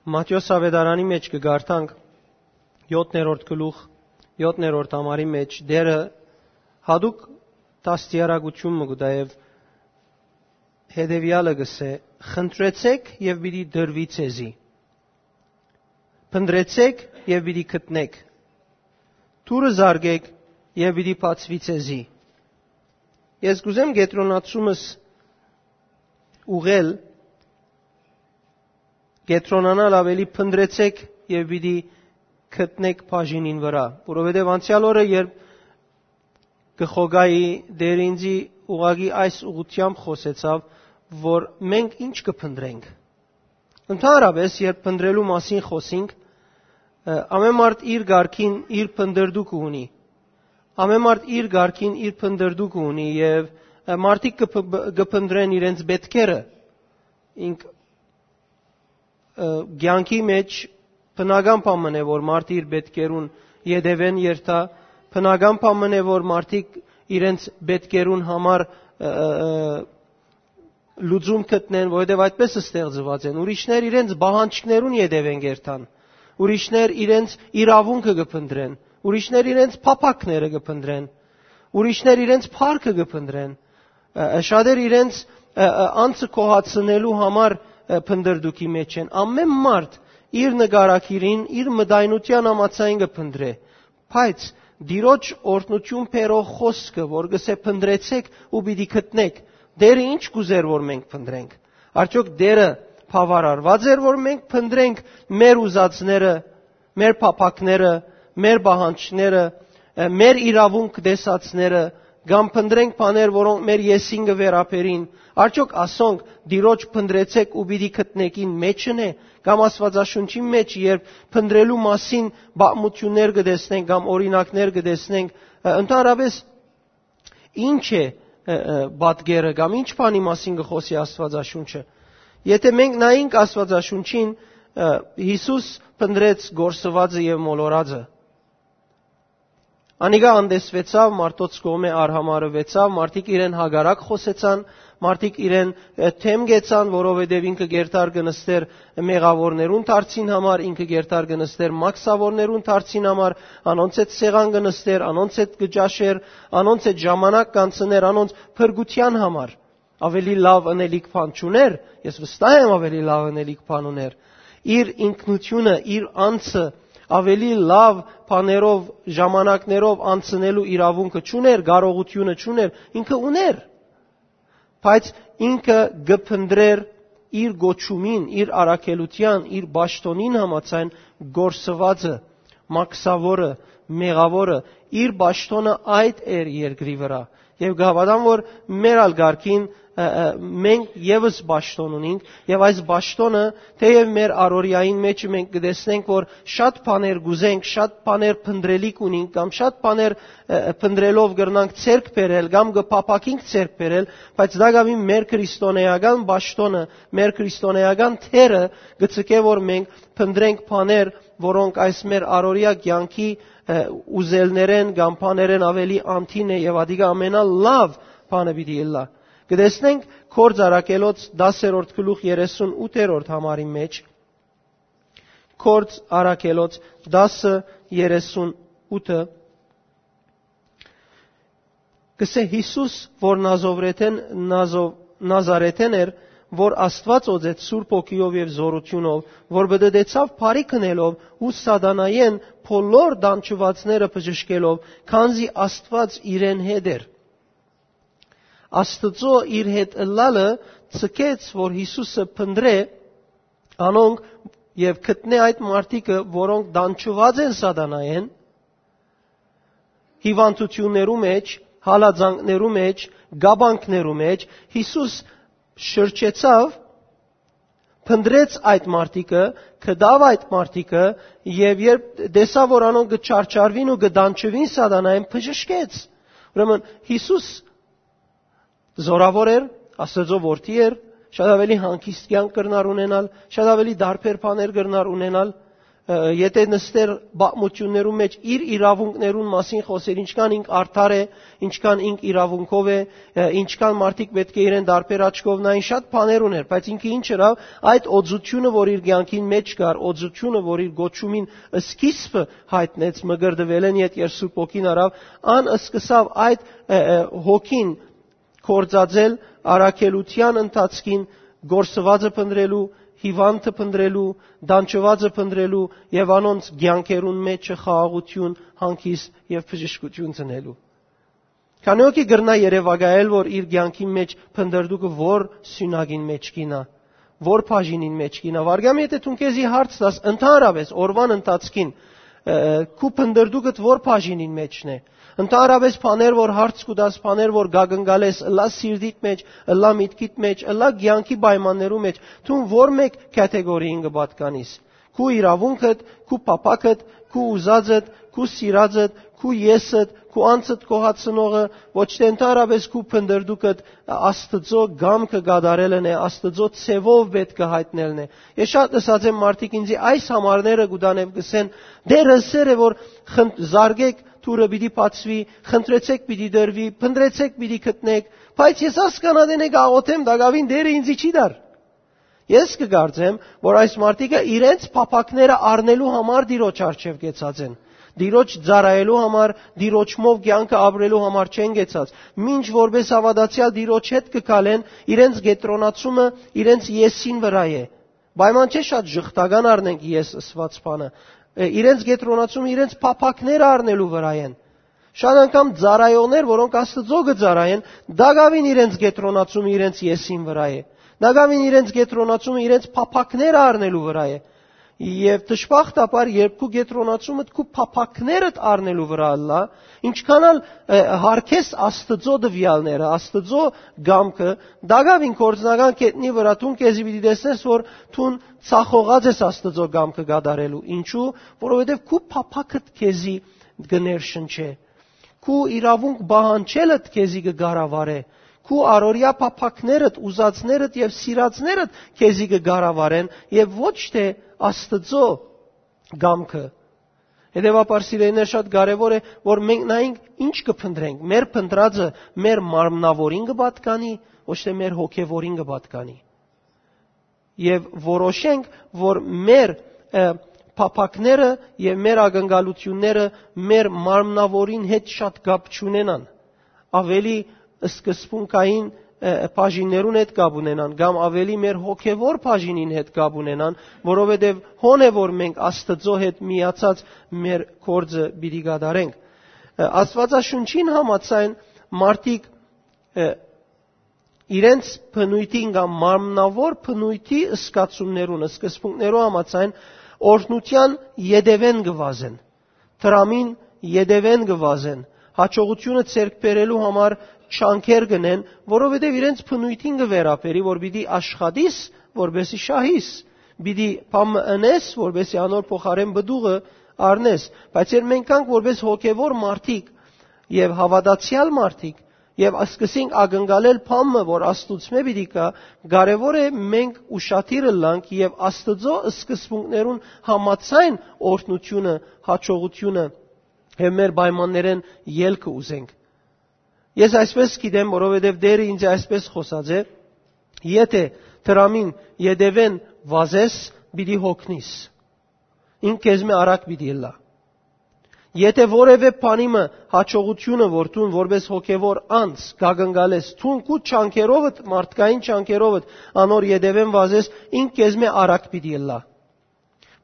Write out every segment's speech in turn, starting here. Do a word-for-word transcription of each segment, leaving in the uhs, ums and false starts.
Մատթէոս աւետարանի մէջ կը կարդանք, յոթերորդ գլուխ, յոթերորդ համարի մէջ Տէրը յատուկ դաստիարակութիւն մը կու տայ եւ հետեւեալը կ'ըսէ. «Խնդրեցէք եւ պիտի տրուի ձեզի. փնտռեցէք եւ պիտի գտնէք. դուռը զարկէք եւ պիտի բացուի ձեզի»։ Ես կ'ուզեմ կեդրոնացումս ուղղել, կեդրոնանալ աւելի «փնտռեցէք եւ պիտի գտնէք» բաժինին վրայ, որովհետեւ անցեալ օրը, երբ կը խոկայի, Տէրը ինծի ուղղակի այս ուղղութեամբ խօսեցաւ, որ մենք ինչ կը փնտռենք։ Ընդհանրապէս, երբ փնտռելու մասին խօսինք, ը, ամէն մարդ իր կարգին իր փնտռտուքը ունի։ Ամէն մարդ իր կարգին իր փնտռտուքը ունի եւ, ը, մարդիկ կը փ-, կը փնտռեն իրենց պէտքերը։ Ինք, ը, կեանքի մէջ բնական բան մըն է, որ մարդ իր պէտքերուն ետեւէն երթայ, բնական բան մըն է, որ մարդիկ իրենց պէտքերուն համար, ը, ը, ը, լուծում գտնեն, որովհետեւ այդպես ստեղծուած են։ Ուրիշներ իրենց պահանջքներուն ետեւէն կ'երթան, ուրիշներ իրենց իրաւունքը կը փնտռեն, ուրիշներ իրենց փափաքները կը փնտռեն, ուրիշներ իրենց փառքը կը փնտռեն, ը, ը, շատեր իրենց, ը, ը, անձը գոհացնելու համար, ը, փնտռտուքի մէջ են։ Ամէն մարդ իր նկարագիրին, իր մտայնութեան համաձայն կը փնտռէ, բայց Տիրոջ օրհնութիւն բերող խօսքը, որ կ'ըսէ «փնտռեցէք ու պիտի գտնէք», Տէրը ի՞նչ կ'ուզէր, որ մենք փնտռենք։ Արդյոք Տէրը բաւարարուած էր, որ մենք փնտռենք մեր ուզածները, մեր փափաքները, մեր պահանջները, ը, մեր իրաւունք տեսածները, կամ փնտռենք բաներ, որոնք մեր եսին կը վերաբերին։ Արդյոք ասոնք Տիրոջ «փնտռեցէք ու պիտի գտնէք»-ին մէջն է, կամ Աստուածաշունչին մէջ, երբ փնտռելու մասին պատմութիւններ կը տեսնենք կամ օրինակներ կը տեսնենք, ը, ընդհանրապէս ի՞նչ է, ը, ը, պատկերը կամ ի՞նչ բանի մասին կը խօսի Աստուածաշունչը։ Եթէ մենք նայենք Աստուածաշունչին, ը, Յիսուս փնտռեց կորսուածը եւ մոլորածը։ Անիկա անտեսուեցաւ, մարդոց կողմէ արհամարհուեցաւ, մարդիկ իրեն հակառակ խօսեցան, մարդիկ իրեն, ը, դէմ գեցան, որովհետեւ ինքը կ'երթար կը նստէր մեղաւորներուն դարձին համար, ինքը կ'երթար կը նստէր մաքսաւորներուն դարձին համար, անոնց հետ սեղան կը նստէր, անոնց հետ կը ճաշէր, անոնց հետ ժամանակ կ'անցնէր, անոնց փրկութեան համար։ Աւելի լաւ ընելիք բան չունէր, ես վստահ եմ, աւելի լաւ ընելիք բան ունէր։ Իր ինքնութիւնը, իր անձը աւելի լաւ բաներով, ժամանակներով անցնելու իրաւունքը չունէր, կարողութիւնը չունէր, ինքը ունէր, բայց ինքը կը փնտռէր իր կոչումին, իր առաքելութեան, իր պաշտօնին համաձայն կորսուածը, մաքսաւորը, մեղաւորը, իր պաշտօնը այդ էր երկրի վրայ։ Եւ կհաւատամ, որ մեր ալ կարգին, ը, ը, մենք եւս պաշտօն ունինք, եւ այս պաշտօնը, թէեւ մեր առօրեային մէջը մենք կը տեսնենք, որ շատ բաներ կ'ուզենք, շատ բաներ փնտռելիք ունինք, կամ շատ բաներ, ը, ը, փնտռելով կրնանք ձեռք բերել, կամ կը փափաքինք ձեռք բերել, բայց տակաւին մեր քրիստոնեական պաշտօնը, մեր քրիստոնեական դերը կը ձգէ, որ մենք փնտռենք բաներ, որոնք այս մեր առօրեայ կեանքի, ը, ուզելներէն կամ բաներէն աւելի անդին է, եւ ատիկա ամենալաւ բանը պիտի ըլլայ։ Կը տեսնենք Գործ Առաքելոց դասերորդ գլուխ երեսուն ութերորդ համարի մէջ, Գործ Առաքելոց դասը երեսուն ութը, կ'ըսէ. «Յիսուս, որ Նազովրեթէն, Նազով-, Նազարեթէն էր, որ Աստուած օծեց Սուրբ Հոգիով եւ զօրութիւնով, որ պտտեցաւ բարի քնելով ու սատանայէն բոլոր դանջուածները բժշկելով, քանզի Աստուած իրեն հետ էր»։ Աստուծոյ իր հետ ըլլալը ձգեց, որ Յիսուսը փնտռէ անոնք եւ գտնէ այդ մարդիկը, որոնք դանջուած են սատանայէն, հիւանդութիւններու մէջ, հալածանքներու մէջ, կապանքներու մէջ։ Յիսուս շրջեցաւ, փնտռեց այդ մարդիկը, գտաւ այդ մարդիկը, եւ երբ տեսաւ, որ անոնք կը չարչարուին ու կը դանջուին սատանայէն, բժշկեց։ Ուրեմն Յիսուս զօրաւոր էր, Աստուծոյ որդի էր, շատ աւելի հանգիստ կեանք կրնար ունենալ, շատ աւելի տարբեր բաներ կրնար ունենալ, Ը, եթե նստեր պատմութիւններուն մէջ, իր իրաւունքներուն մասին խօսեր, ինչքան ինք արդար է, ինչքան ինք իրաւունքով է, ը, ինչքան մարդիկ պէտք է իրեն տարբեր աչքով նային, շատ բաներ ուներ, բայց ինքը ինչ ըրաւ, այդ օծութիւնը, որ իր կեանքին մէջ կար, օծութիւնը, որ իր կոչումին սկիզբը յայտնեց, մկրտուելէն յետ երբ Սուրբ Հոգին առաւ, ան սկսաւ այդ, ը, ը, հոգին գործածել առաքելութեան ընթացքին, կորսուածը փնտռելու, հիւանդը փնտռելու, տանջուածը փնտռելու եւ անոնց կեանքերուն մէջ խաղաղութիւն, հանգիստ եւ բժշկութիւն ծնելու։ Քանի՞ հոգի կրնայ երեւակայել, որ իր կեանքին մէջ փնտռտուքը որ սիւնակին մէջ կ'իյնայ, որ բաժինին մէջ կ'իյնայ։ Վարգամ, եթե դուն քեզի հարց տաս, ընդհանրապէս օրուան ընթացքին, ը, քու փնտռտուքդ որ բաժինին մէջն է։ Ընդհանրապէս բաներ, որ հարց կու տաս, բաներ, որ կակնկալես, ըլլայ սիրտիդ մէջ, ըլլայ միտքիդ մէջ, ըլլայ կեանքի պայմաններու մէջ, դուն որ մէկ կատեգորիին կը պատկանիս։ Քու իրաւունքդ, քու փափաքդ, քու ուզածդ, քու սիրածդ, քու եսդ, քու անձդ գոհացնողը, ոչ թէ ընդհանրապէս քու փնտռտուքդ Աստուծոյ կամքը կատարելն է, Աստուծոյ ձեւով պէտք է յայտնելն է։ Ես շատ լսած եմ մարդիկ ինձի այս համարները կու տան եւ կ'ըսեն. «Տէրը ըսեր է, որ խն-, զարկէք, դուռը պիտի բացուի, խնդրեցէք, պիտի տրուի, փնտռեցէք, պիտի գտնէք, բայց ես այս կանատենէ կաղոթեմ, տակաւին Տէրը ինձի չի տար»։ Ես կը կարծեմ, որ այս մարդիկը իրենց փափաքները առնելու համար Տիրոջ առջեւ կեցած են։ Տիրոջ ծառայելու համար, Տիրոջմով կեանքը ապրելու համար չեն կեցած։ Մինչ որպես հաւատացեալ Տիրոջ հետ կը քալեն, իրենց կեդրոնացումը իրենց եսին վրայ է։ Պայման չէ շատ ժխտական առնենք ես ըսուած բանը։ Ը, իրենց կեդրոնացումը իրենց փափաքները առնելու վրայ են։ Շատ անգամ ծառայողներ, որոնք Աստուծոյ կը ծառայեն, տակաւին իրենց կեդրոնացումը իրենց եսին վրայ է։ Տակաւին իրենց կեդրոնացումը իրենց փափաքները առնելու վրայ է։ Եւ դժբախտաբար, երբ քու կեդրոնացումդ քու փափաքներդ առնելու վրայ ըլլայ, ինչքան ալ, ը, յարգես Աստուծոյ տուեալները, Աստուծոյ կամքը, տակաւին գործնական գետնի վրայ դուն քեզի պիտի տեսնես, որ դուն ձախողած ես Աստուծոյ կամքը կատարելու։ Ինչու՞, որովհետեւ քու փափաքդ քեզի կը ներշնչէ։ Քու իրաւունք պահանջելդ քեզի կը կառավարէ։ Քու առօրեայ փափաքներդ, ուզածներդ եւ սիրածներդ քեզի կը կառավարեն եւ ոչ թէ Աստուծոյ կամքը։ Հետեւաբար, սիրելիներ, շատ կարեւոր է, որ մենք նայենք ինչ կը փնտռենք, մեր փնտռածը մեր մարմնաւորին կը պատկանի, ոչ թէ մեր հոգեւորին կը պատկանի։ Եւ որոշենք, որ մեր, ը, փափաքները եւ մեր ակնկալութիւնները մեր մարմնաւորին հետ շատ կապ չունենան, ավելի սկզբունքային, ը, բաժիններուն հետ կապ ունենան, կամ ավելի մեր հոգեվոր բաժինին հետ կապ ունենան, որովհետեւ հոն է, որ մենք Աստուծոյ հետ միացած մեր գործը պիտի կատարենք։ Ը, Աստուածաշունչին համաձայն մարդիկ, ը, իրենց բնույթին կամ մարմնաւոր բնույթի զգացումներուն, սկզբունքներու համաձայն օրհնութեան ետևէն կը վազեն, դրամին ետևէն կը վազեն, հաջողութիւնը ձեռք բերելու համար չանքեր կ'ընեն, որովհետեւ իրենց բնույթին կը վերաբերի, որ պիտի աշխատիս, որպեսզի շահիս, պիտի բան մը ընես, որպեսզի անոր փոխարէն պտուղը առնես։ Բայց երբ մենք կանք որպես հոգեվոր մարդիկ եւ հաւատացեալ մարդիկ, եւ սկսենք ակնկալել բան մը, որ Աստուծմէ պիտի գայ, կարեւոր է մենք ուշադիր ըլլանք եւ Աստուծոյ սկզբունքներուն համաձայն օրհնութիւնը, հաջողութիւնը եւ մեր պայմաններէն ելքը ուզենք։ Ես այսպես գիտեմ, որովհետեւ Տէրը ինձ այսպես խօսած է. «Եթէ դրամին ետևէն վազես, պիտի հոգնիս։ Ինք քեզմէ արագ պիտի ըլլայ»։ Եթէ որեւէ բանի մը հաջողութիւնը, որ դուն որպես հոգեվոր անձ կակնկալես, դուն քու չանքերովդ, մարդկային չանքերովդ անոր ետևէն վազես, ինք քեզմէ արագ պիտի ըլլայ։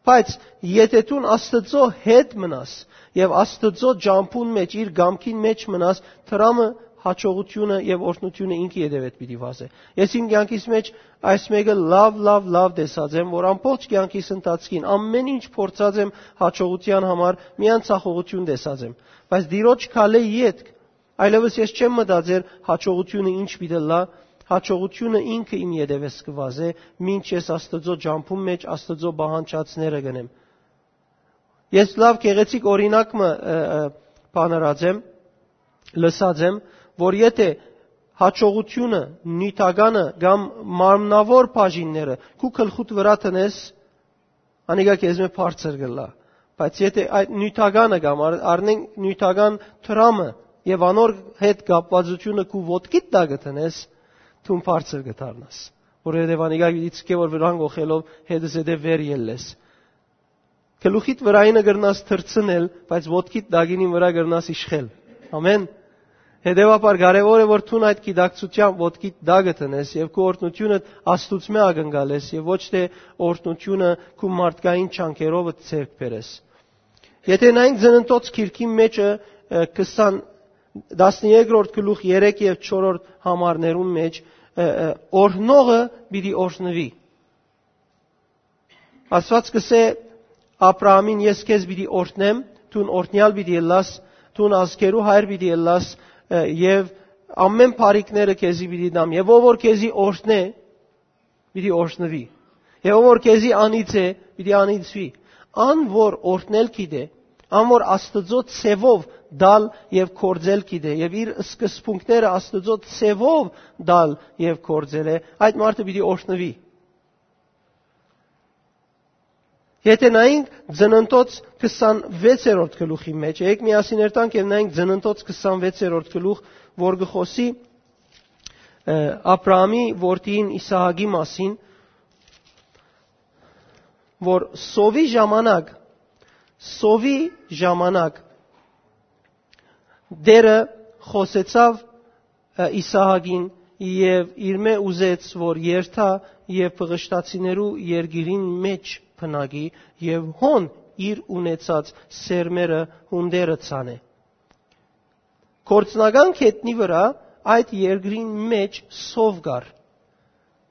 Բայց եթէ դուն Աստուծոյ հետ մնաս եւ Աստուծոյ ճամբուն մէջ, իր կամքին մէջ մնաս, դրամը, հաջողութիւնը եւ օրհնութիւնը ինքը ետևէդ պիտի վազէ։ Ես իմ կեանքիս մէջ այս մէկը լաւ, լաւ, լաւ տեսած եմ, որ ամբողջ կեանքիս ընթացքին ամէն ինչ փորձած եմ հաջողութեան համար, միայն ձախողութիւն տեսած եմ։ Բայց Տիրոջ քալէ ետք, այլեւս ես չեմ մտածեր հաջողութիւնը ինչ պիտի ըլլայ, հաջողութիւնը ինքը իմ ետևէս կը վազէ, մինչ ես Աստուծոյ ճամբուն մէջ Աստուծոյ պահանջածները կ'ընեմ։ Ես լաւ գեղեցիկ օրինակ մը, ը, ը, բանարած եմ, լսած եմ, որ եթէ հաջողութիւնը, նիւթականը կամ մարմնաւոր բաժինները քու գլխուդ վրայ դնես, անիկա քեզմէ բարձր կ'ըլլայ։ Բայց եթէ այդ նիւթականը կամ առ-, առնենք նիւթական դրամը եւ անոր հետ կապուածութիւնը քու ոտքիդ տակը դնես, դուն բարձր կը դառնաս։ Որովհետեւ անիկա գիտի չկէ որ վրան գողելով հետզհետե վեր ելլես։ Գլուխիդ վրայինը կրնաս թռցնել, բայց ոտքիդ տակինին վրայ կրնաս իշխել։ Ամեն։ Հետեւաբար կարեւոր է որ դուն այդ գիտակցութեան ոտքիդ տակը դնես եւ քու օրհնութիւնը Աստուծմէ ակնկալես եւ ոչ թէ օրհնութիւնը քու մարդկային չանքերովը ձեռք բերես։ Եթէ նայենք Ծննդոց գիրքին մէջը, ը, քսան, տասներկրորդ գլուխ երեք եւ չորրորդ համարներուն մէջ, ը, ը, օրհնողը պիտի օրհնուի։ Աստուած կ'ըսէ Աբրահամին. «Ես քեզ պիտի օրհնեմ, դուն օրհնեալ պիտի ըլլաս, դուն ազգերու հայր պիտի ըլլաս, ը, եւ ամեն բարիքները քեզի պիտի տամ, եւ ով որ քեզի օրհնէ, պիտի օրհնուի, եւ ով որ քեզի անիծէ, պիտի անիծուի»։ Ան որ օրհնել գիտէ, ան որ Աստուծոյ ձեւով տալ եւ գործել գիտէ, եւ իր սկզբունքները Աստուծոյ ձեւով տալ եւ գործել է, այդ մարդը պիտի օրհնուի։ Եթէ նայենք Ծննդոց քսանվեցերորդ գլուխի մէջ, եկեք միասին երթանք եւ նայենք Ծննդոց քսանվեցերորդ գլուխ, որ կը խօսի, ը, Աբրահամի որդին Իսահակի մասին, որ սովի ժամանակ, սովի ժամանակ Տէրը խօսեցաւ, ը, Իսահակին եւ իրմէ ուզեց որ երթայ եւ Պղշտացիներու երկիրին մէջ բնակի եւ հոն իր ունեցած սերմերը հունդերը ցանէ։ Գործնական գետնի վրայ այդ երկրին մէջ սով կար։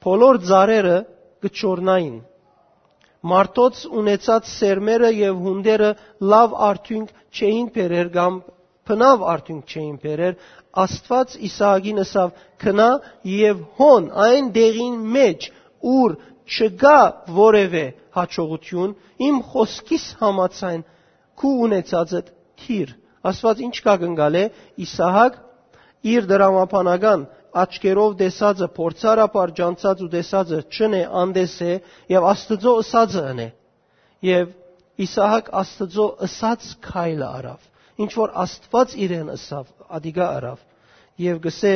Բոլոր ծառերը կը չորնային։ Մարդոց ունեցած սերմերը եւ հունդերը լաւ արդիւնք չէին բերեր կամ բնաւ արդիւնք չէին բերեր։ Աստուած Իսահակին ըսաւ. «Գնա եւ հոն այն տեղին մէջ, ուր չկայ որեւէ յաջողութիւն, իմ խօսքիս համաձայն քու ունեցածդ դիր»։ Աստուած ինչ կ'ակնկալէ, Իսահակ իր դրամաբանական աչքերով տեսածը, փորձառաբար ճանչցած ու տեսածը չընէ, անտես է եւ Աստուծոյ ըսածը ընէ։ Եւ Իսահակ Աստուծոյ ըսած քայլը առաւ, ինչ որ Աստուած իրեն ըսաւ, ատիկա առաւ։ Եւ կ'ըսէ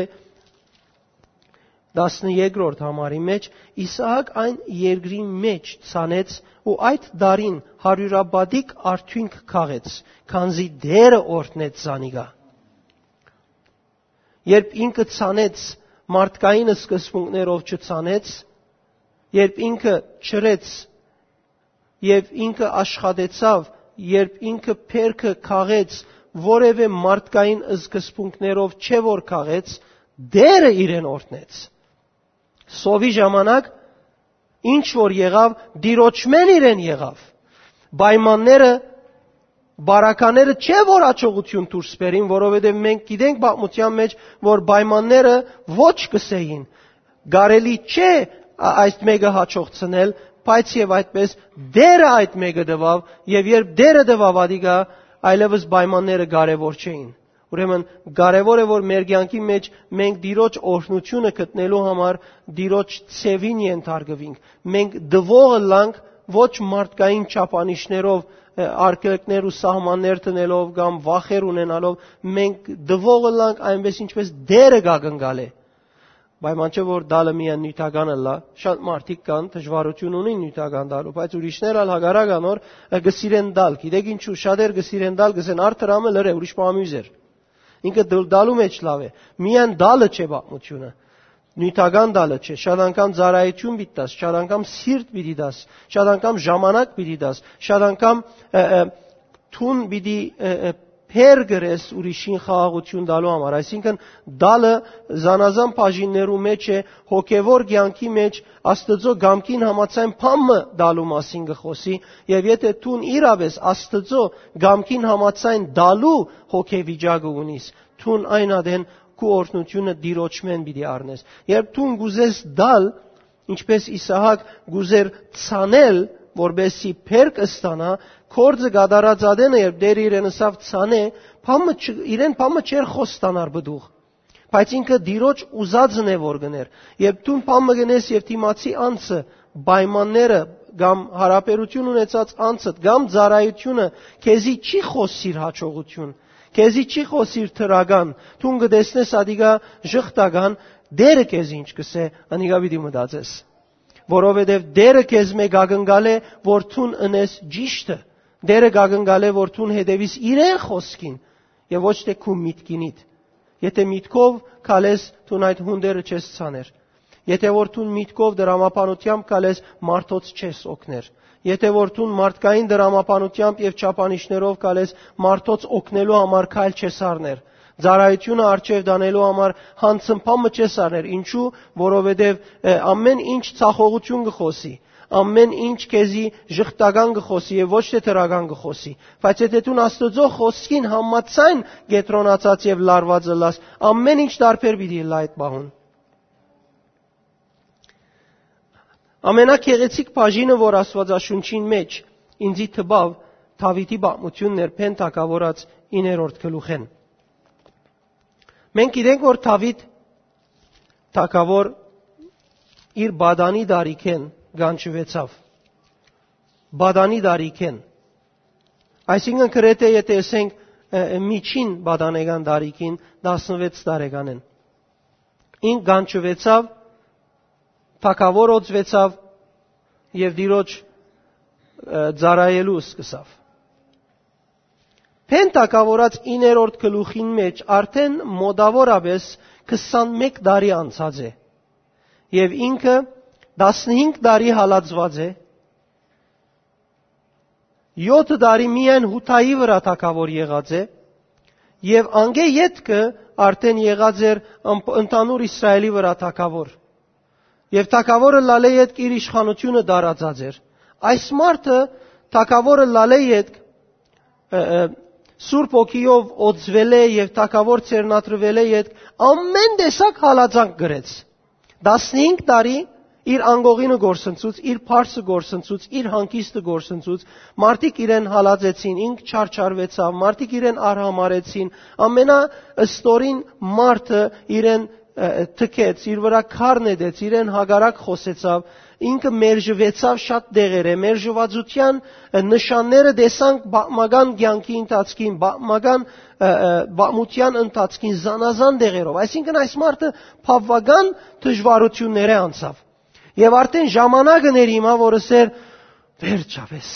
տասներկրորդ համարի մէջ. «Իսահակ այն երկրին մէջ ցանեց ու այդ տարին հարիւրապատիկ արդիւնք քաղեց, քանզի Տէրը օրհնեց զանիկա»։ Երբ ինքը ցանեց, մարդկային սկզբունքներով չցանեց, երբ ինքը չրեց եւ ինքը աշխատեցաւ, երբ ինքը բերքը քաղեց, որեւէ մարդկային սկզբունքներով չէ որ քաղեց, Տէրը իրեն օրհնեց։ Սովի ժամանակ ինչ որ եղաւ, Տիրոջմէն իրեն եղաւ։ Պայմանները, բարակաները չէ որ աջողութիւն դուրս բերին, որովհետեւ մենք գիտենք պատմութեան մէջ, որ պայմանները ոչ կ'ըսէին, կարելի չէ ա-, այս մէկը յաջողցնել, բայց եւ այդպես Տէրը այդ մէկը տուաւ, եւ երբ Տէրը տուաւ ատիկա, այլեւս պայմանները կարեւոր չէին։ Ուրեմն կարեւոր է որ մեր կեանքի մէջ մենք Տիրոջ օրհնութիւնը գտնելու համար Տիրոջ ձեւին ենթարկուինք։ Մենք տուող ըլլանք ոչ մարդկային չափանիշներով, ը, արգելքներ ու սահմաններ դնելով կամ վախեր ունենալով, մենք տուող ըլլանք այնպես ինչպես Տէրը կ'ակնկալէ։ Պայման չէ որ տալը միայն նիւթական ըլլայ, շատ մարդիկ կան, դժուարութիւն ունին նիւթական տալու, բայց ուրիշներ ալ հակառակ անոր, ը, կը սիրեն տալ։ Գիտեք ինչու, շատեր կը սիրեն տալ, կ'ըսեն. «Արդար ամը լրե, ուրիշ բան ամիզ էր»։ Ինքը դլ-, տալու մէջ լաւ է, միայն տալը չէ պատմութիւնը։ Նիւթական տալը չէ, շատ անգամ ծառայութիւն պիտի տաս, շատ անգամ սիրտ պիտի տաս, շատ անգամ ժամանակ պիտի տաս, շատ անգամ, ը, ը, դուն պիտի, ը, ը, փեր գրես ուրիշին խաղաղութիւն տալու համար։ Այսինքն, տալը զանազան բաժիններու մէջ է, հոգեվոր կեանքի մէջ Աստուծոյ կամքին համաձայն բան մը տալու մասին կը խօսի, եւ եթէ դուն իրապէս Աստուծոյ կամքին համաձայն տալու հոգեվիճակը ունիս, դուն այն ատեն քու օրհնութիւնը Տիրոջմէն պիտի առնես։ Երբ դուն կ'ուզես տալ, ինչպես Իսահակ կ'ուզեր ցանել, որպեսզի բերք ստանայ, գործը կատարած ատենը, երբ Տէրը իրեն ըսաւ ցանէ, բան մը չ-, իրեն բան մը չէր խոստանար պտուղ, բայց ինքը Տիրոջ ուզածն է որ գներ։ Երբ դուն բան մը գնես եւ դիմացի անձը պայմանները կամ յարաբերութիւն ունեցած անձդ, կամ ծառայութիւնը քեզի չի խօսիր յաջողութիւն, քեզի չի խօսիր դրական, դուն կը տեսնես ատիկա ժխտական, Տէրը քեզ ինչ կ'ըսէ, անիկա պիտի մտածես։ Որովհետեւ Տէրը քեզմէ կ'ակնկալէ, որ դուն ընես ճիշդը։ Տէրը կ'ակնկալէ, որ դուն հետեւիս իրեն խօսքին եւ ոչ թէ քու միտքինիդ։ Եթէ միտքով քալես, դուն այդ հունդերը չես ցաներ։ Եթէ որ դուն միտքով դրամաբանությամբ քալես, մարդոց չես օգներ։ Եթէ որ դուն մարդկային դրամաբանությամբ եւ չափանիշներով քալես, մարդոց օգնելու համար քայլ չես առներ։ Ծառայութիւնը արջեւ տանելու համար յանցմբան մը չես առներ։ Ինչու՞, որովհետեւ, ը, ամէն ինչ ցախողութիւն կը խօսի, ամէն ինչ քեզի ժխտական կը խօսի եւ ոչ թէ դրական կը խօսի։ Բայց եթէ դուն Աստուծոյ խօսքին համաձայն կեդրոնացած եւ լարուած ըլլաս, ամէն ինչ տարբեր պիտի ըլլայ այդ պահուն։ Ամենագեղեցիկ բաժինը, որ Աստուածաշունչին մէջ ինծի տպաւ, Դաւիթի պատմութիւնն էր, Բեն թագաւորած իններորդ գլուխէն։ Մենք գիտենք, որ Դաւիթ թագաւոր իր պատանի տարիքէն կանչուեցաւ։ Պատանի տարիքէն։ Այսինքն, գրեթէ, եթէ ասենք, ը, ը, միջին պատանեկան տարիքին, տասնվեց տարեկանէն, ինք կանչուեցաւ, թագաւոր օծուեցաւ եւ Տիրոջ, ը, ծառայելու սկսաւ։ Բեն թագաւորած իններորդ գլուխին մէջ արդէն մօտաւորապէս քսանմէկ տարի անցած է եւ ինքը տասնհինգ տարի հալածուած է, յոթը տարի միայն Յուդայի վրայ թագաւոր եղած է եւ անկէ ետքը արդէն եղած էր ըմ-, ընդհանուր Իսրայէլի վրայ թագաւոր։ Եւ թագաւորը ըլլալէ ետք իր իշխանութիւնը տարածած էր։ Այս մարդը թագաւորը ըլլալէ ետք, ը, ը, Սուրբ Հոգիով օծուելէ եւ թագաւոր ձեռնադրուելէ ետք ամէն տեսակ հալածանք կրեց։ Տասնհինգ տարի իր անկողինը գործընծուց, իր փարսը գործընծուց, իր հանգիստը գործընծուց, մարդիկ իրեն հալածեցին, ինք չարչարուեցաւ, մարդիկ իրեն արհամարեցին, ամենաստորին մարդը իրեն, ը, թքեց, իր վրայ քար նետեց, իրեն հակառակ խօսեցաւ, ինքը մերժուեցաւ շատ դեղերէ, մերժուածութեան, ը, նշանները տեսանք պատմական կեանքի ընթացքին, պատմական, ը, ը, պատմութեան ընթացքին զանազան դեղերով։ Այսինքն, այս մարդը բաւական դժուարութիւններէ անցաւ։ Եւ արդէն ժամանակը ներ հիմա, որ ըսեր, «Վերջապէս,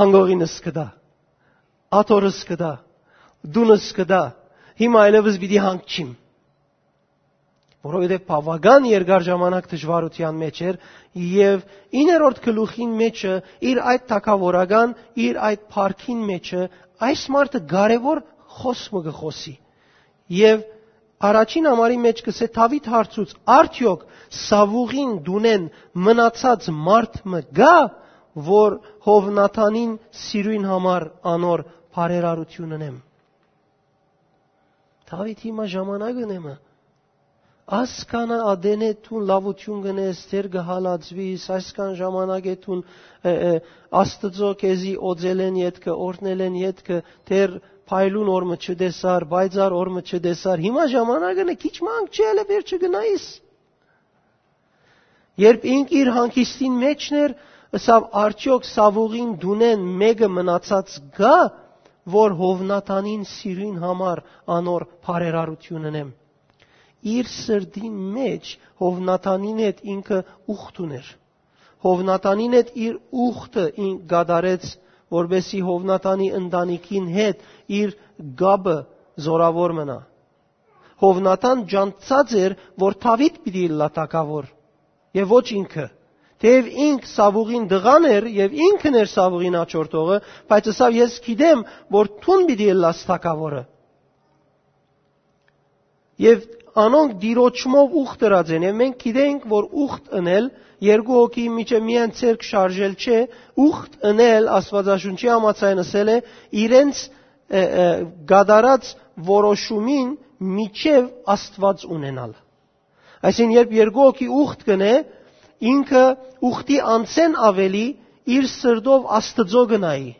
անկողինս կտայ, աթոռս կտայ, տունս կտայ, հիմա այլեւս պիտի հանգչիմ»։ Որովհետեւ բաւական երկար ժամանակ դժուարութեան մէջ էր եւ իններորդ գլուխին մէջը, իր այդ թագաւորական, իր այդ փառքին մէջը, այս մարդը կարեւոր խօս մը կը խօսի։ Եւ առաջին համարի մէջ կ'ըսէ, Դաւիթ հարցուց. «Արդեօք Սաւուղին տունէն մնացած մարդ մը կա, որ Յովնաթանին սիրոյն համար անոր բարերարութիւն ընեմ»։ Դաւիթ հիմա ժամանակն է մը։ Ասքան ատենէ դուն լաւութիւն կ'ընես, դեռ կը հալածուիս, այսքան ժամանակ է դուն, ը, ը, Աստուծոյ քեզի օծելէն ետքը, օրհնելէն ետքը, դեռ փայլուն օր մը չտեսար, պայծառ օր մը չտեսար։ Հիմա ժամանակն է, քիչ մը անգամ չի, ելը վերջը գնայիս։ Երբ ինք իր հանգիստին մէջն էր, ըսաւ. «Արդեօք Սաւուղին տունէն մէկը մնացած կա, որ Յովնաթանին սիրոյն համար անոր բարերարութիւն ընեմ»։ Իր սրտին մէջ Յովնաթանին հետ ինքը ուխտ ունէր։ Յովնաթանին հետ իր ուխտը ինք կատարեց, որպեսզի Յովնաթանի ընտանիքին հետ իր կապը զօրաւոր մնայ։ Յովնաթան ջանցած էր, որ Դաւիթ պիտի ըլլայ թագաւոր, եւ ոչ ինքը։ Թէեւ ինք Սաւուղին տղան էր եւ ինքն էր Սաւուղին աջորդողը, բայց ըսաւ. «Ես գիտեմ, որ դուն պիտի ըլլաս թագաւորը»։ Եւ անոնք Տիրոջմով ուխտ ըրած են, եւ մենք գիտենք, որ ուխտ ընել, երկու հոգի միջեւ միայն ձեռք շարժել չէ, ուխտ ընել, Աստուածաշունչի համաձայն ըսել է, իրենց, ը, ը, կատարած որոշումին միջեւ Աստուած ունենալ։ Այսինքն, երբ երկու հոգի ուխտ կ'ընէ, ինքը ուխտի անցէն աւելի իր սրտով Աստուծոյ կը նայի։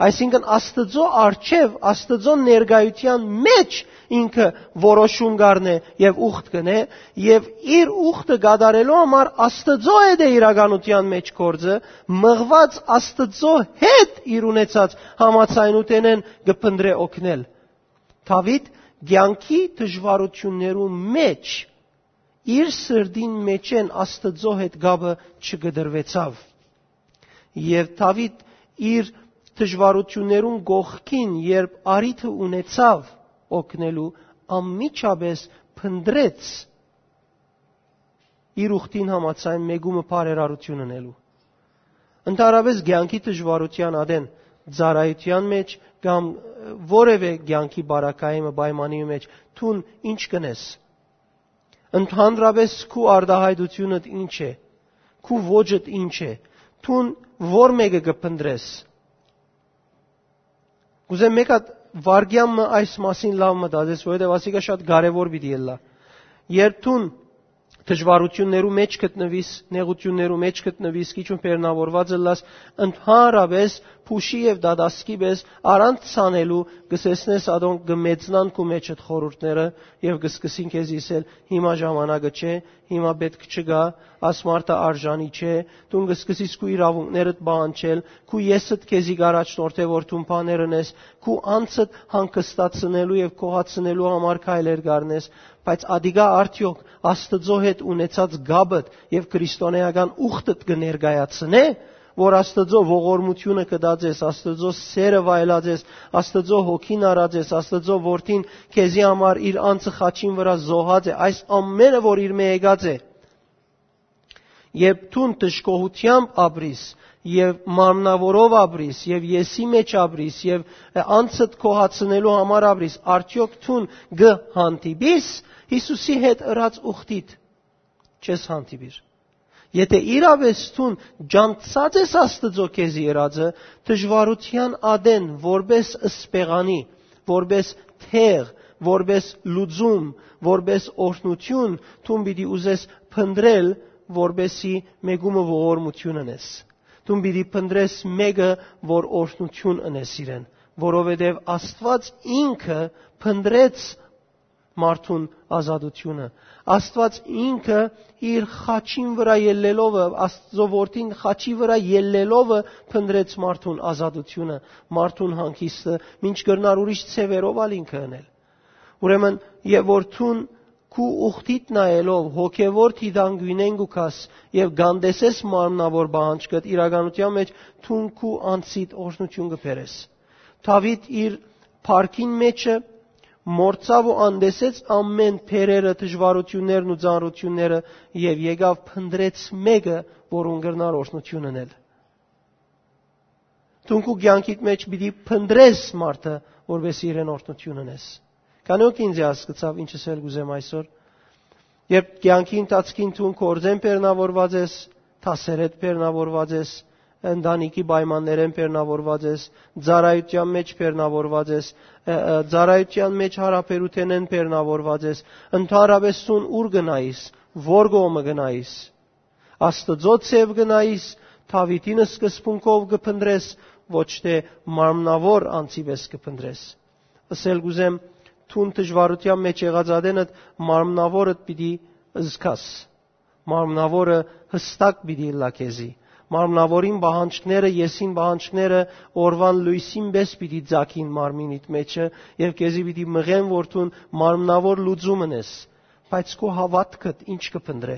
Այսինքն՝ Աստուծոյ առջեւ, Աստուծոյ ներկայութեան մէջ ինքը որոշում կ'առնէ եւ ուխտ կ'ընէ, եւ իր ուխտը կատարելու համար Աստուծոյ հետ է իրականութեան մէջ գործը, մղուած Աստուծոյ հետ իր ունեցած համաձայնութենէն կը փնտռէ օգնել։ Դաւիթ կեանքի դժուարութիւններու մէջ իր սրտին մէջէն Աստուծոյ հետ կապը չկտրուեցաւ։ Եւ Դաւիթ իր դժուարութիւններուն կողքին, երբ առիթը ունեցաւ օգնելու, անմիջապէս փնտռեց իր ուխտին համաձայն մեկումը բարերարութիւն ընելու։ Ընդհանրապէս կեանքի դժուարութեան ատեն, ծառայութեան մէջ կամ որեւէ կեանքի բարակայի մը պայմանի մէջ դուն ինչ կ'ընես։ Ընդհանրապէս քու արտայայտութիւնդ ինչ է, քու ոճդ ինչ է, դուն ո՞ր մէկը կը փնտռես։ Կ'ուզեմ մէկ հատ վայրկեան մը այս մասին լաւ մտածես, որովհետեւ ասիկա շատ կարեւոր պիտի ըլլայ։ Երբ դուն դժուարութիւններու մէջ գտնուիս, նեղութիւններու մէջ գտնուիս, քիչ ու բեռնաւորուած ըլլաս, ընդհանրապէս փուշի եւ դատասկի պէս առանց ցանելու կը սեսնես ատոնք կը մեծնան քու մէջդ խորհուրդները եւ կը սկսին քեզի ըսել. «Հիմա ժամանակը չէ, հիմա պէտք չկայ, աս մարդը արժանի չէ», դուն կը սկսես քու իրաւունքներդ պահանջել, քու եսդ քեզի կ'առաջնորդէ որ դուն բաներ ընես, քու անձդ հանգստացնելու եւ գոհացնելու համար քայլեր կ'առնես, բայց ատիկա արդեօք Աստուծոյ հետ ունեցած կապդ եւ քրիստոնէական ուխտդ կը ներկայացնէ, որ Աստուծոյ ողորմութիւնը կտած ես, Աստուծոյ սերը վայելած ես, Աստուծոյ հոգին առած ես, Աստուծոյ որդին քեզի համար իր անձը խաչին վրայ զոհած է, այս ամէնը որ իրմէ եկած է։ Երբ դուն դժգոհութեամբ ապրիս եւ մարմնաւորով ապրիս եւ եսի մէջ ապրիս եւ անձդ գոհացնելու համար ապրիս, արդեօք դուն կը հանդիպիս Յիսուսի հետ ըրած ուխտիդ, չես հանդիպիր։ Եթէ իրապէս դուն ճանչցած ես Աստուծոյ քեզի ըրածը, դժուարութեան ատեն որպէս սպեղանի, որպէս թեղ, որպէս լուծում, որպէս օրհնութիւն, դուն պիտի ուզես փնտռել, որպէսի մեկումը ողորմութիւն ընես։ Դուն պիտի փնտռես մեկը, որ օրհնութիւն ընես իրեն, որովհետեւ Աստուած ինքը փնտռեց մարդուն ազատութիւնը։ Աստուած ինքը իր խաչին վրայ ելլելովը, Աստուծոյ որդին խաչի վրայ ելլելովը փնտռեց մարդուն ազատութիւնը, մարդուն հանգիստը, մինչ կրնար ուրիշ ձեւերով ալ ինքը ընել։ Ուրեմն, եւ որ դուն քու ուխտիդ նայելով հոգեվոր դիտանկիւնէն կու գաս եւ կ'անտեսես մարմնաւոր պահանջքդ, իրականութեան մէջ դուն քու անձիդ օրհնութիւն կը բերես։ Դաւիթ իր փառքին մէջը մոռցաւ ու անտեսեց ամէն բերերը, դժուարութիւններն ու ծանրութիւնները եւ եկաւ փնտռեց մեկը, որուն կրնար օրհնութիւն ընել։ Դուն քու կեանքիդ մէջ պիտի փնտռես մարդը, որպէս իրեն օրհնութիւն ընես։ Քանի՞ օք ինձ հասկցաւ ինչ ըսել կ'ուզեմ այսօր։ Երբ կեանքի ընթացքին դուն գործէն բեռնաւորուած ես, դասերէդ բեռնաւորուած ես, ընտանիքի պայմաններէն բեռնաւորուած ես, ծառայութեան մէջ բեռնաւորուած ես, ը, ը, ծառայութեան մէջ յարաբերութենէն բեռնաւորուած ես, ընդհանրապէս դուն ո՞ւր կը նայիս, ո՞ր կողմը կը նայիս։ Աստուծոյ ձեւ կը նայիս, Դաւիթին սկզբունքով կը փնտռես, ոչ թէ մարմնաւոր անձի պէս կը փնտռես։ Ըսել կ'ուզեմ, դուն դժուարութեան մէջ եղած ատենդ մարմնաւորդ պիտի զգաս։ Մարմնաւորը յստակ պիտի ըլլայ քեզի։ Մարմնաւորին պահանջքները, եսին պահանջքները օրուան լոյսին պէս պիտի ծագին մարմինիդ մէջը եւ քեզի պիտի մղեն որ դուն մարմնաւոր լուծում ընես, բայց քու հաւատքդ ինչ կը փնտռէ։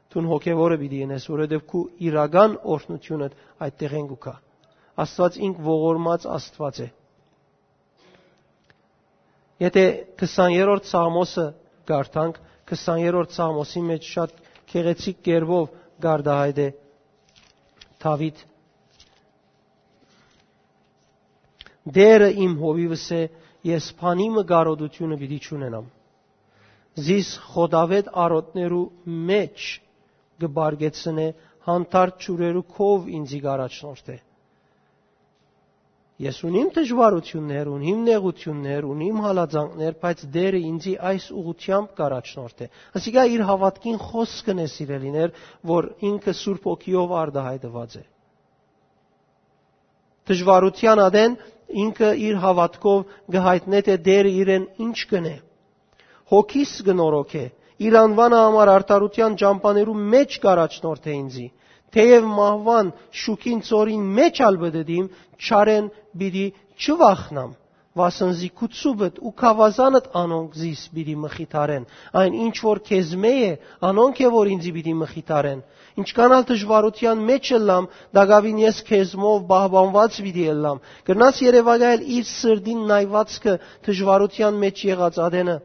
Դուն հոգեվորը պիտի ընես, որովհետեւ քու իրական օրհնութիւնդ այդտեղէն կու գայ։ Աստուած ինք ողորմած Աստուած է։ Եթէ քսաներորդ Սաղմոսը կարդանք, քսաներորդ Սաղմոսի մէջ շատ գեղեցիկ կերպով կարտահայտէ Դաւիթ. «Տէրը իմ հովիւս է, ես բանի մը կարօտութիւնը պիտի չունենամ։ Զիս խոտաւէտ արոտներու մէջ կը պարգեցնէ, հանդարտ ջուրերու քով ինծի կ'առաջնորդէ»։ Ես ունիմ դժուարութիւններ, ունիմ նեղութիւններ, ունիմ հալածանքներ, բայց Տէրը ինծի այս ուղղութեամբ կ'առաջնորդէ։ Ասիկա իր հաւատքին խօսքն է, սիրելիներ, որ ինքը Սուրբ Հոգիով արտահայտուած է։ Դժուարութեան ատեն ինքը իր հաւատքով կը յայտնէ թէ Տէրը իրեն ինչ կ'ընէ։ Հոգիս կը նորոգէ։ Իր անուանը համար արդարութեան ճամբաներու մէջ կ'առաջնորդէ ինծի։ Թէեւ մահուան շուքին ծորին մէջ ալ պտտիմ, չարէն պիտի չվախնամ, վասն զի քու ծուբդ ու գաւազանդ անոնք զիս պիտի մխիթարեն։ Այն ինչ որ քեզմէ է, անոնք է որ ինծի պիտի մխիթարեն։ Ինչքան ալ դժուարութեան մէջ ըլլամ, տակաւին ես քեզմով պահպանուած պիտի ըլլամ։ Կրնաս երեւակայել իր սրտին նայուածքը դժուարութեան մէջ եղած ատենը։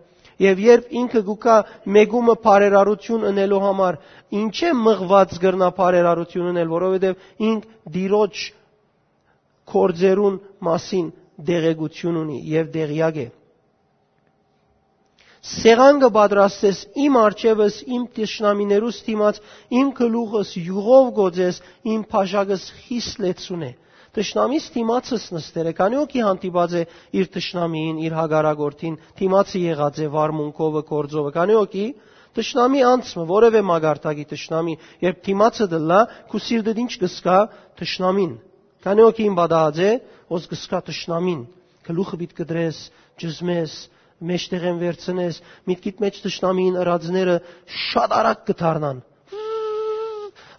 Եւ երբ ինքը գուկա մեկումը բարերարութիւն ընելու համար, ինչէ մղուած կրնայ բարերարութիւն ընել, որովհետեւ ինք Տիրոջ գործերուն մասին տեղեկութիւն ունի եւ տեղեակ է։ Սեղան կը պատրաստես իմ առջեւս, իմ թշնամիներուս դիմաց, իմ գլուխս յուղով կ'օծես, իմ բաժակս խիստ լեցուն է։ Թշնամիս դիմացս նստեր է, քանի՞ օքի հանդիպած է իր թշնամիին, իր հակառակորդին, դիմացը եղած է վարմունքովը, գործովը, քանի՞ օքի թշնամի անձ մը, որևէ մագարտակի թշնամի, երբ դիմացը դլլա, քու սիրտդ ինչ կսկա թշնամին։ Քանի՞ օքի իմ պատահած է, ոս կսկա թշնամին, գլուխը պիտ կտրես, ճզմես, մէջտեղէն վերցնես, միտքիդ մէջ թշնամին ըրածները շատ արագ կը դառնան։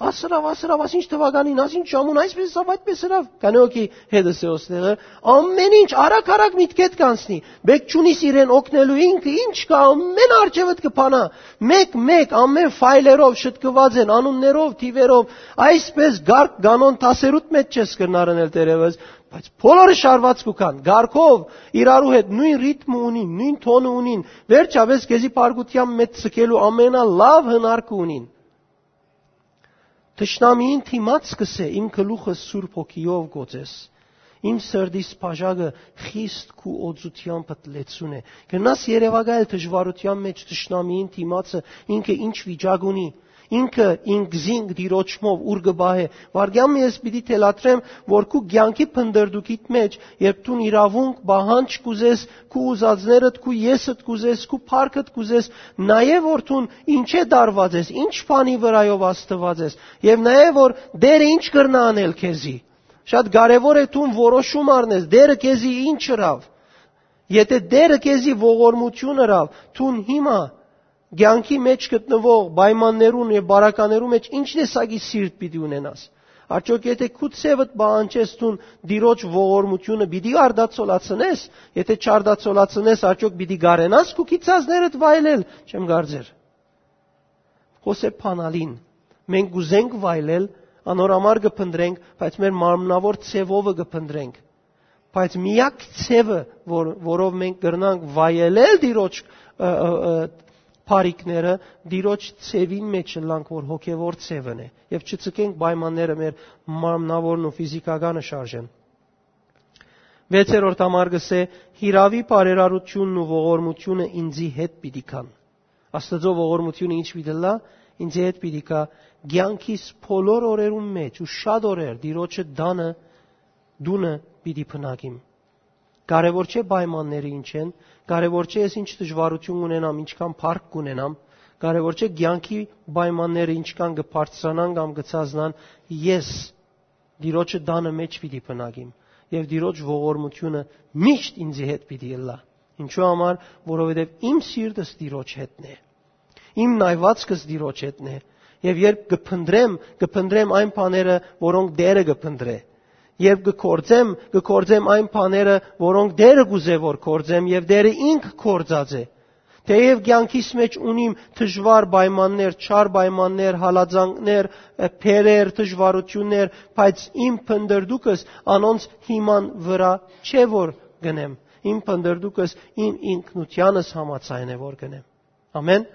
Ասրավ, ասրավ, ասինչ թվականին, ասինչ ժամուն, այսպես ըսաւ, այդպես ըրաւ։ Քանի՞ օքի հետս է ոստեղը, ամեն ինչ արագ-արագ միտքեդ կանցնի։ Բեք չունիս իրեն օգնելու, ինքը ինչ կա, ամեն արջևդ կը փանա։ Մեկ-մեկ, ամեն ֆայլերով շտկուած են, անուններով, թիվերով, այսպես գարկ կանոն դասերուդ մեջ չես կրնար ընել դերևս, բայց բոլորը շարված կու կան, գարկով, իրարու հետ նոյն ռիթմը ունին, նոյն թոնը ունին, վերջապէս քեզի փառկութեան մեջ ցկելու ամենալաւ հնարքը ունին։ Թշնամիին դիմաց կ'ըսէ, իմ գլուխը Սուրբ Հոգիով կ'օծես, իմ սրտիս բաժակը խիստ քու օծութեամբդ լեցուն է։ Կրնաս երեւակայել դժուարութեան մեջ թշնամիին դիմացը, ինքը ինչ վիճակ ունի, ինքը ինքզինք Տիրոջմով ուր կը պահէ։ Վարգեան մը ես պիտի թելադրեմ, որ քու կեանքի փնտռտուքիդ մեջ, երբ դուն իրաւունք, պահանջ կ'ուզես, քու ուզածներդ, քու եսդ կ'ուզես, քու փառքդ կ'ուզես, նայէ որ դուն ինչէ տարուած ես, ինչ բանի վրայով ազդուած ես, եւ նայէ որ Տէրը ինչ կրնայ անել քեզի։ Շատ կարեւոր է դուն որոշում առնես, Տէրը քեզի ինչ ըրաւ։ Եթե Տէրը քեզի ողորմություն ըրաւ, դուն հիմա կեանքի մեջ գտնուող պայմաններուն եւ բարականերու մեջ ինչ տեսակի սիրտ պիտի ունենաս։ Արդյոք եթե քու ձևդ պահանջես, դուն Տիրոջ ողորմությունը պիտի արտացոլացնես, եթե չարտացոլացնես, արդյոք պիտի կարենաս քու գիծածներդ վայելել, չեմ կարծեր։ Հոսեփ Փանալին, մենք կ'ուզենք վայելել, անոր համար կը փնտրենք, բայց մեր մարմնավոր ձևովը կը փնտրենք։ Բայց միակ ձևը, որ, որով մենք կրնանք վայելել Տիրոջ, ը, ը, ը, բարիքները, Տիրոջ ձևին մեջ ըլլանք, որ հոգեվոր ձևն է, եւ չցկենք պայմանները մեր մարմնավորն ու ֆիզիկականը շարժեն։ Վեցերորդ համար կ'ըսէ. «Հիրաւի բարերարությունն ու ողորմությունը ինձի հետ պիտի գան»։ Աստուծոյ ողորմությունը ինչ պիտի ըլլայ, ինձի հետ պիտի գայ կեանքիս բոլոր օրերուն մեջ ու շատ օրեր Տիրոջը տանը, տունը պիտի բնակիմ։ Կարեւոր չէ պայմանները ինչ են, կարեւոր չէ ես ինչ դժուարություն ունենամ, ինչքան փառք կունենամ, կարեւոր չէ կեանքի պայմանները ինչքան կը բարձրանան կամ կը ցածնան, ես Տիրոջը տանը մեջ պիտի բնակիմ, եւ Տիրոջ ողորմությունը միշտ ինձի հետ պիտի ըլլայ։ Ինչու համար, որովհետեւ իմ սիրտս Տիրոջ հետն է, իմ նայվածքս Տիրոջ հետն է, եւ երբ կը փնտրեմ, կը փնտրեմ այն բաները, որոնք Տէրը կը փնտրէ, երբ կը գործեմ, կը գործեմ այն բաները, որոնք Տէրը կ'ուզէ որ գործեմ, եւ Տէրը ինք գործած է։ Թէեւ կեանքիս մեջ ունիմ դժուար պայմաններ, չար պայմաններ, հալածանքներ, բերեր, դժուարություններ, բայց իմ փնտռտուքս անոնց հիման վրայ չէ որ գնեմ, իմ փնտռտուքս իմ ինքնութեանս համաձայն է որ գնեմ։ Ամեն։